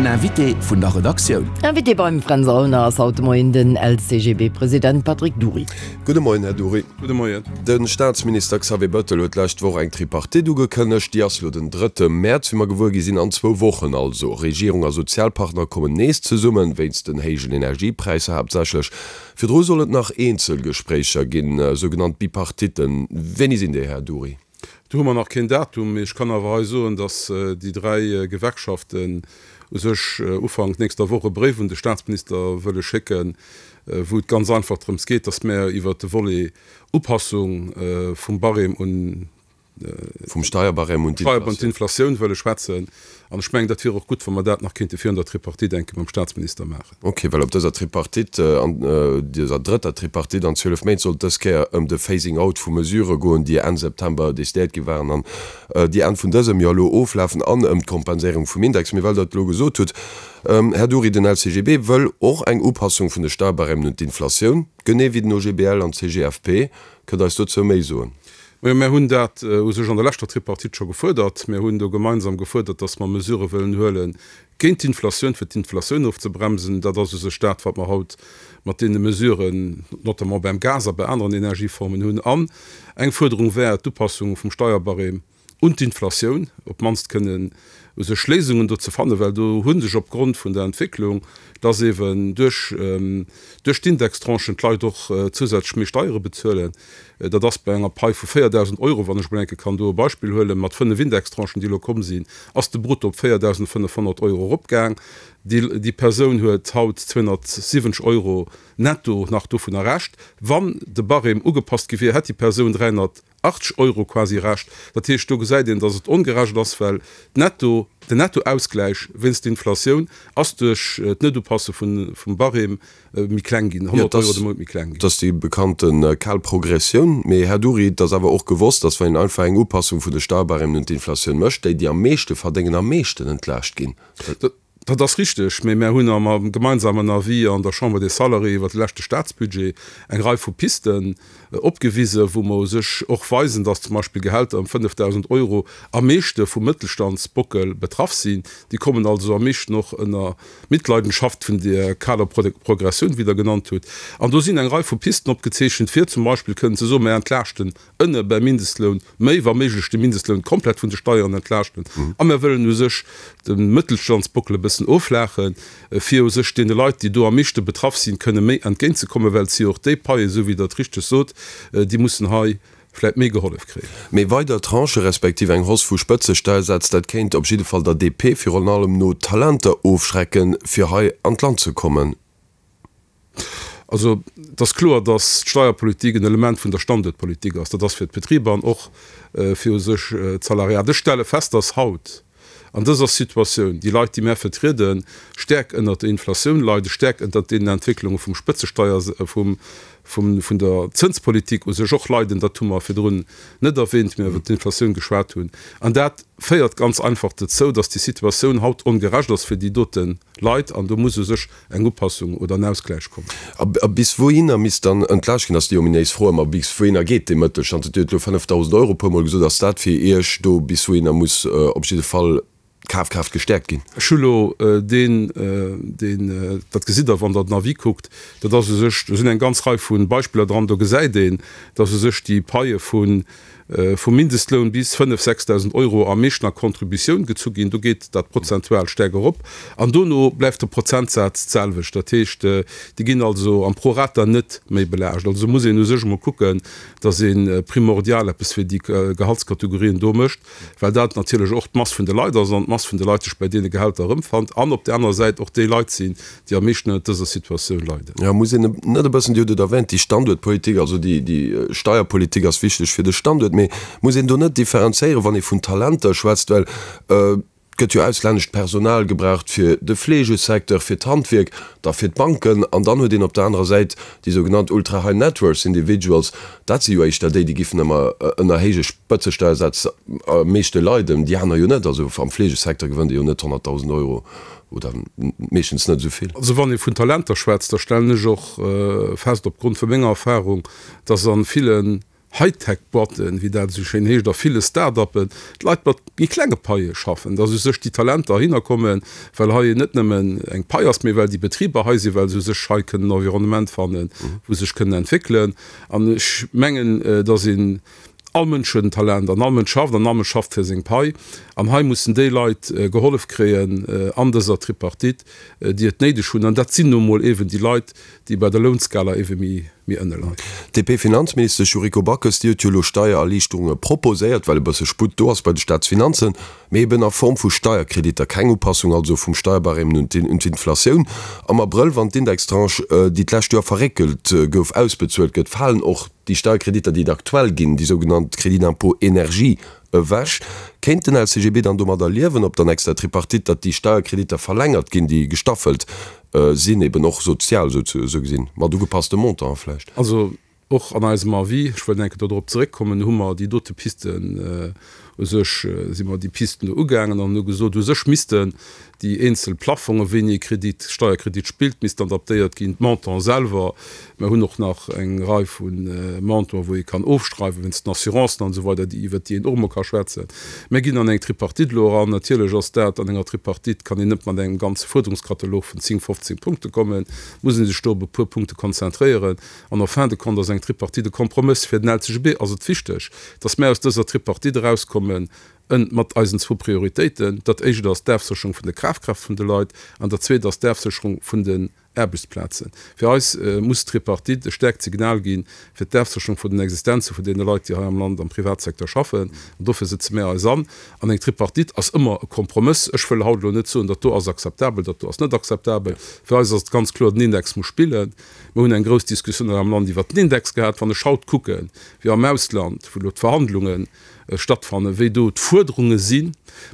Den Invité vun der Redaktioun. Invité beim Fränz Aulner ass haut de Moien den LCGB-President Patrick Dury. Gudde Moien, Här Dury. Gudde Moien. De Staatsminister Xavier Bettel huet d'lescht Woch eng Tripartite ugekënnegt. Déi ass lo den drëtte Mäerz, wéi mer gewuer gi sinn, an zwou Wochen also. Regierung a Sozialpartner kommen nees zesummen, wéinst den héijen Energiepräisser haaptsächlech. Virdru soll et nach eenzel Gespréicher ginn, sougenannt Bipartitten. Wéini sinn déi, Här Dury? Do hu mer nach keen Datum, mee ech kann awer hei soen, datt déi dräi Gewerkschaften u sech Ufank nächster Woch e Bréif un de Staatsminister wëlle schécken, wou et ganz einfach drëms geet, datt mär iwwert de Volet Upassung vum Barème un Vum Steierbarème un d'Inflatioun wëlle schwätzen. An ech mengen, dat wier och gutt, wa mer dat nach kéinte virun der Tripartite eng Kéier mam Staatsminister maachen. Ok, well op dëser Tripartite, an dëser drëtter Tripartite an 12 Méint, sollt dës Kéier ëm de Phasing out vu Mesurë goen, déi Enn September decidéiert gi waren an déi Enn vun dësem Joer elo oflafen, an ëm d'Kompenséierung vum Index. Mee well Der et elo gesot hutt, Här Dury, den LCGB wëll och eng Upassung vun de Steierbarèmen un d'Inflatioun, genee wéi den OGBL an d'CGFP. Kënnt Der eis dozou méi soen? Majo, mär hunn dat u sech an der leschter Tripartite scho gefuerdert. Mär hunn do gemeinsam gefuerdert, datt mer Mesurë wëllen huele géint d'Inflatioun, fir d'Inflatioun ofzebremsen. Dat ass u sech dat, wat mer haut mat deene Mesuren, notamment beim Gas a bei aneren Energieformen hunn. An eng Fuerderung wär d'Upassung vum Steierbarème un d'Inflatioun, op d'mannst kënnen u sech Léisungen do ze fannen, well do hu sech opgrond vun der Entwécklung, dass eeben duerch duerch d'Indextranchen d'Leit och zousätzlech méi Steiere bezuelen, dat ass bei enger Pai vu 4.000 Euro, wann ech emol eng Kéier kann do e Beispill huelen, mat 5 Indextranchen, déi elo komm sinn, ass de Brutto op 4.500 Euro eropgaang. Déi déi Persoun huet haut 270 Euro netto nach dovunner Rescht. Wann de Barème ugepasst gi wier, hätt déi Persoun 300. 80 Euro quasi Rescht. Dat heescht, do gesäit een, datt et ongerecht ass, well d'Netto, den Nettoausgläich wéinst der Inflatioun ass duerch d'Netupasse vum Barème méi kleng ginn, 100 Euro de Mount méi kleng ginn. Dat ass déi bekannte kal Progressioun. Mee, Här Dury, et ass awer och gewosst, datt wann een einfach eng Upassung vun de Steierbarèmen un d'Inflatioun mécht, déi, déi am meeschte verdéngen, am meeschten entlaascht ginn. Dat ass richteg, mee mär hunn am gemeinsamen Avis an der Chambre des Salariés iwwert de leschte Staatsbudget eng Rei vu Pisten opgewisen, wou mer u sech och weisen, dass zum Beispill Gehälter ëm 5.000 Euro am meeschte vum Mëttelstandsbockel betraff sinn. Déi kommen also am meeschten och ënner Mitleidenschaft vun där kaler Progressioun, wéi Der genannt hutt. An do sinn eng Rei vu Pisten opgezeechent, fir zum Beispill kënnen ze soen, Mär entlaaschten ënne beim Mindestloun méi, wa méiglech de Mindestloun komplett vun de Steieren entlaaschten a mir wëllen u sech de Mëttelstandsbockel e bëssen offlaachen, fir u sech deene Leit, déi do am meeschte betraff sinn, kënne méi entgéintzekommen, well et si jo och déi Paien, esou wéi Der et richteg sot, déi mussen hei vläicht méi gehollef kréien. Mee weider Tranchë respektiv eng Hausse vu Spëtzesteiersätz, dat kéint op jidde Fall der DP virun allem no Talenter ofschrecken, fir hei an d'Land ze kommen. Also, et ass kloer, datt d'Steierpolitik en Element vun der Standuertpolitik ass. Dat ass fir d'Betriber an och fir u sech d'Salariat. Ech stelle fest, datt haut an dëser Situatioun déi Leit, déi mär vertrieden, stäerk ënnert der Inflatioun leiden, stäerk ënnert deenen Entwécklunge vum Spëtzesteier, vum, vun der Zënspolitik u sech och leiden. Dat hu mer virdrun net erwähnt, wéi mer iwwert d'Inflatioun geschwat hunn. An dat féiert ganz einfach dozou, datt déi Situatioun haut ongerecht ass fir déi dote Leit an do muss u sech eng Upassung oder en Ausgläich kommen. A bis wouhinner misst dann entlaascht ginn, ass déi ominéis Fro ëmmer. Bis wouhinner geet dee Mëttelstand? Dir hutt elo 5.000 Euro e puermol gesot. Ass dat fir Iech do, bis wouhinner muss op jidde Fall d'Kafkraaft gestäerkt ginn? Ech hu elo deen, deen, dat gesitt Der, wann Der den Avis kuckt, dat ass u sech, do sinn eng ganz Rei vu Beispiller dran, do gesäit een, dass u sech déi Paie vun vum Mindestloun bis 5, 6.000 Euro am meeschten a Contributioun gezu ginn, do geet dat prozentual staark erop an dono bleift de Prozentsaz d'selwecht. Dat heescht, déi ginn also am Prorata net méi belaascht. Also muss een u sech emol kucken, datt ee primordial eppes fir déi Gehaltskategorien do mécht, well dat natierlech och d'Mass vun de Leit ass an d'Mass vun de Leit sech bei deene Gehälter erëmfannt an op där anerer Säit och déi Leit sinn, déi am meeschten ënnert dëser Situatioun leiden. Jo, muss een net e bëssen, Dir hutt et erwähnt, déi Standuertpolitik, also déi, déi Steierpolitik ass wichteg fir de Standuert, mee muss een do net differenzéieren, wann ee vun Talenter schwätzt, well et gëtt jo auslännescht Personal gebraucht fir de Fleegesecteur, fir d'Handwierk, da fir d'Banken an dann huet een op der anerer Säit déi sougenannt ultra high net worth individuals, dat si jo éischter déi, déi giffen ëmmer ënner héije Spëtzesteiersätz am meeschte leiden, déi aner jo net. Also am Fleegesecteur gewënnt ee jo net 100.000 Euro oder meeschtens net esou vill. Also wann ee vun Talenter schwätzt, da stellen ech och fest opgrond vu menger Erfahrung, dass a villen. Hightech-Boîten, wéi dat esou schéin heescht, a ville Start-uppen d'Leit mat méi klenge Paie schaffen, dass u sech déi Talenter heihinner kommen, well hei net nëmmen eng Pai ass, mee well déi Betriber hei sinn, well se u sech hei kënnen en Environnement fannen, wou se sech kënnen entwéckelen. An ech mengen, dass een, all Mënsch huet en Talent an all Mënsch schafft an all Mënsch schafft fir seng Pai. An hei mussen déi Leit gehollef kréien an dëser Tripartite, déi et néideg hunn. An dat sinn nu emol eeben déi Leit, déi bei der Lounskala eebe méi ënne leien. D'DP-Finanzministesch Yuriko Backes, déi huet jo elo Steiererliichterunge proposéiert, well e bësse Sputt do ass bei de Staatsfinanzen, mee eben a Form vu Steierkreditter. Keng Upassung also vum Steierbarème un d'Inflatioun. Am Abrëll, wann d'Indextranche, déi d'lescht Joer verréckelt gouf, ausbezuelt gëtt, falen och Déi Steierkreditter, déi et aktuell ginn, déi sougenannt Crédit d'impôt énergie, ewech. Kéint den LCGB dann domadder liewen op der nächster Tripartite, datt déi Steierkreditter verlängert ginn, déi gestaffelt sinn, eben och sozial esou gesinn, mat ugepasste Montanten vläicht? Also och an eisem Avis, ech wëll eng Kéier do drop zeréckkommen, hu mer déi dote Pisten, u sech si mer déi Pisten do ugaangen an hu gesot, u sech missten Déi eenzel Plaffonge wéini ee Kredit, Steierkredit spillt, missten adaptéiert ginn. D'Montanten selwer, mer hunn och nach eng Rei vu Montanten, wou ee kann ofschreiwen, wéinst den Assurancen an esou weider, déi, iwwert déi een och emol ka schwätzen. Mer ginn an eng Tripartite elo eran. Natierlech ass dat, an enger Tripartite kann een net mat engem ganze Fuerderungskatalog vun 10, 15 Punkte kommen, muss ee sech do op e puer Punkte konzentréieren. An en fin de compte ass eng Tripartite e Kompromëss. Fir den LCGB ass et wichteg, datt mer aus dëser Tripartite erauskommen En mat eisen zwou Prioritéiten, dat éischt ass d'Afsécherung vun der Kafkraaft vun de Leit an dat zweet ass d'Afsécherung vun den Aarbechtsplazen. Fir eis muss d'Tripartite e staarkt Signal gi fir d'Afsécherung vun den Existenze vun deene Leit, déi hei am Land am Privatsecteur schaffen. An dofir sëtze mär eis an. An eng Tripartite ass ëmmer e Kompromëss. Ech wëll haut elo net soen, dat do ass akzeptabel, dat do ass net akzeptabel. Fir eis ass et ganz kloer, den Index muss spillen. Mir hunn eng grouss Diskussioun hei am Land iwwert den Index gehat. Wann ech haut kucken, wéi am Ausland, wou elo d'Verhandlungen stattfannen, wéi do d'Fuerderunge sinn,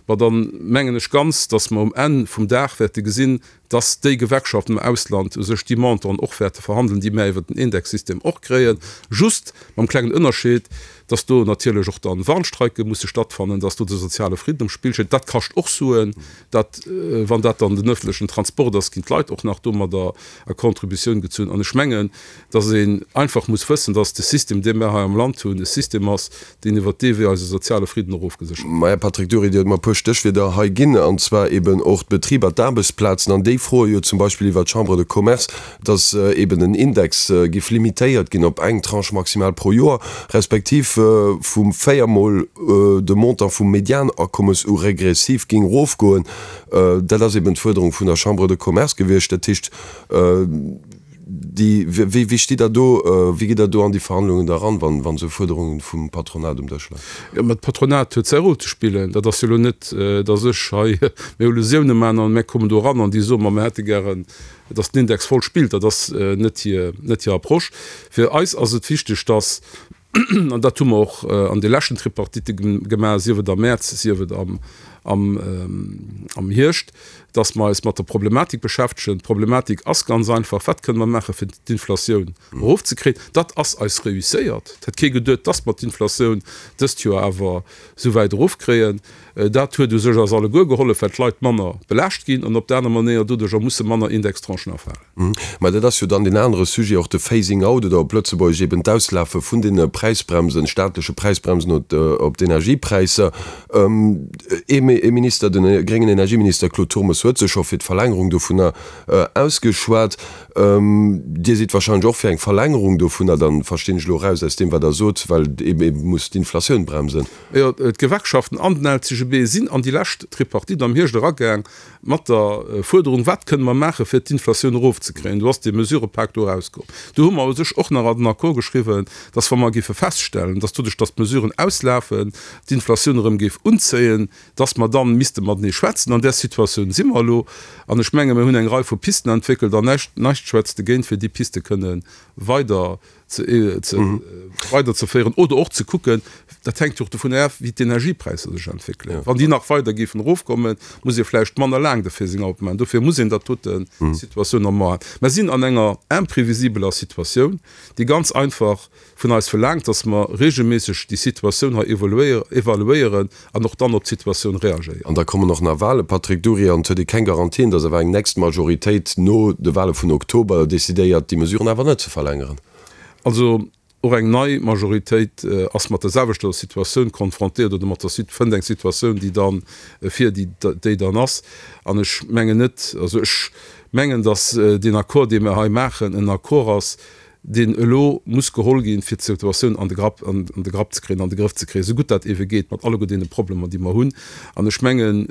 ma da mengen ech ganz, dass mer um Enn vum Dag wäerte gesinn, dass déi Gewerkschaften am Ausland u sech déi Montanten och wäerte verhandeln, déi mär iwwert den Indexsystem och kréien, just mam klengen Ënnerscheed, dass do natierlech och dann Warnstreike musse stattfannen, dass do de soziale Fridden um Spill steet. Dat kascht och Suen. Dat, wann dat dann den öffentlechen Transport ass, ginn d'Leit och nach domadder a Contributioun gezunn. An ech mengen, dass een einfach muss wëssen, dass de System, dee mär hei am Land hunn, e System ass, deen iwwert dee Wee eise soziale Fridden och ofgeséchert gëtt. Maja, Patrick Dury, Dir hutt mer e puer Stéchwierder hei ginn, an zwar eben och d'Betriber, d'Aarbechtsplazen. An déi froe jo zum Beispill iwwert d'Chambre de Commerce, dass eben den Index giff limitéiert ginn op eng Tranche maximal pro Joer, respektiv vu véiermol de Montant vum Medianakommes u regressiv ging erofgoen. Dat ass eben d'Fuerderung vun der Chambre de Commerce gewiescht. Dat heescht, déi, wéi, wéi stitt Der do, wéi gitt Der do an déi Verhandlungen da eran, wann, wann esou Fuerderungen vum Patronat um Dësch leien? Jo, mä d'Patronat huet säi Rôle ze spillen. Dat ass jo elo net, dass ech hei mir Illusiounen maachen an mär kommen do eran an déi soen, ma mir hätte gären, dass den Index voll spillt. Dat ass net hir, net hir Approche. Fir eis ass et wichteg, dass, an dat hu mer och an de leschten Tripartitte gemaach, sief et am Mäerz, sief et am, am, am Hierscht, dass mer eis mat der Problematik beschäftegen. D'Problematik ass ganz einfach, Wat kënne mer maachen, fir d'Inflatioun erofzekréien? Dat ass eis reusséiert. Et hätt kee geduet, dass mer d'Inflatioun dëst Joer awer esou wäit erofkréien. Dat huet u sech eis alleguer gehollef, well d'Leit manner belaascht ginn an op der aner Manéier doduercher musse manner Indextranchen erfalen. Mä dat ass jo dann deen anere Sujet, och de Phasing out oder op Lëtzebuergesch eben d'Auslafe vun deene Präisbremsen, staatleche Präisbremsen op d'Energiepräisser. Ee Minister, de gréngen Energieminister Claude Turmes huet sech scho fir d'Verlängerung dovunner ausgeschwat. Dir sidd wahrscheinlech och fir eng Verlängerung dovunner, dann verstinn ech elo eraus aus deem wat Der sot, well ee muss d'Inflatioun bremsen. Jo, d'Gewerkschaften an den LCGB sinn an déi lescht Tripartite am Hierscht eragaang mat der Fuerderung, Wat kënne mer maachen, fir d'Inflatioun erofzekréien? Do ass dee Mesurëpak do erauskomm. Do hu mer u sech och nach an den Accord geschriwwen, dass, wa mer géife feststellen, dass doduerch, dass d'Mesuren auslafen, d'Inflatioun erëm géif unzéien, dass mer dann misste matenee schwätzen. An där Situatioun si mer elo. An ech menge mir hunn eng Rei vu Pisten entwéckelt an näischt, näischt schwätzt dogéint, fir déi Piste kënne weider weiderzeféieren oder och ze kucken, dat hänkt jo och dovun af, wéi d'Energiepräisser sech entwéckelen. Wann déi nach weider géifen erofkommen, muss ee vläicht manner laang de Phasing out maachen. Dofir muss een dat doten Situatioun am A. Mer sinn an enger imprevisibeler Situatioun, déi ganz einfach vun eis verlaangt, dass mer regelméisseg déi Situatioun hei evaluéieren an och dann op d'Situatioun reagéieren. An da kommen och nach Wahlen, Patrick Dury, an et huet ee keng Garantien, dass awer eng nächst Majoritéit no de Wahle vun Oktober decidéiert, déi Mesuren awer net ze verlängeren. Also. Och eng nei Majoritéit ass mat der selwechter Situatioun konfrontéiert oder mat der fënnt eng Situatioun, déi dann fir déi déi dann ass. An ech mengen net, also ech mengen, datt deen Accord, dee mer hei maachen, en Accord ass, deen elo muss geholl ginn, fir d'Situatioun an de Grapp an de Grapp ze kréien, an de Grëff ze kréien, esou gutt dat eebe geet, mat alleguer deene Problemer, déi mer hunn. An ech mengen,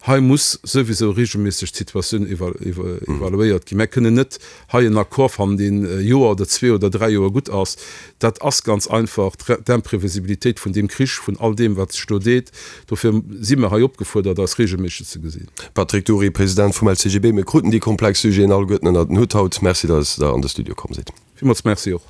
Hei muss souwisou regelméisseg d'Situatioun evaluéiert ginn. Mär kënnen net hei en Accord fannen, deen e Joer oder zwee oder dräi Joer gutt ass. Dat ass ganz einfach d'Imprévisibilitéit vun deem Krich, vun all deem, wat sech do deet. Dofir si mer hei opgefuerdert, eis regelméisseg ze gesinn. Patrick Dury, President vum LCGB, Mir kruten déi komplex Sujeten alleguerten ënnert den Hutt haut. Merci, datt Der an de Studio komm sidd. Villmools Merci och.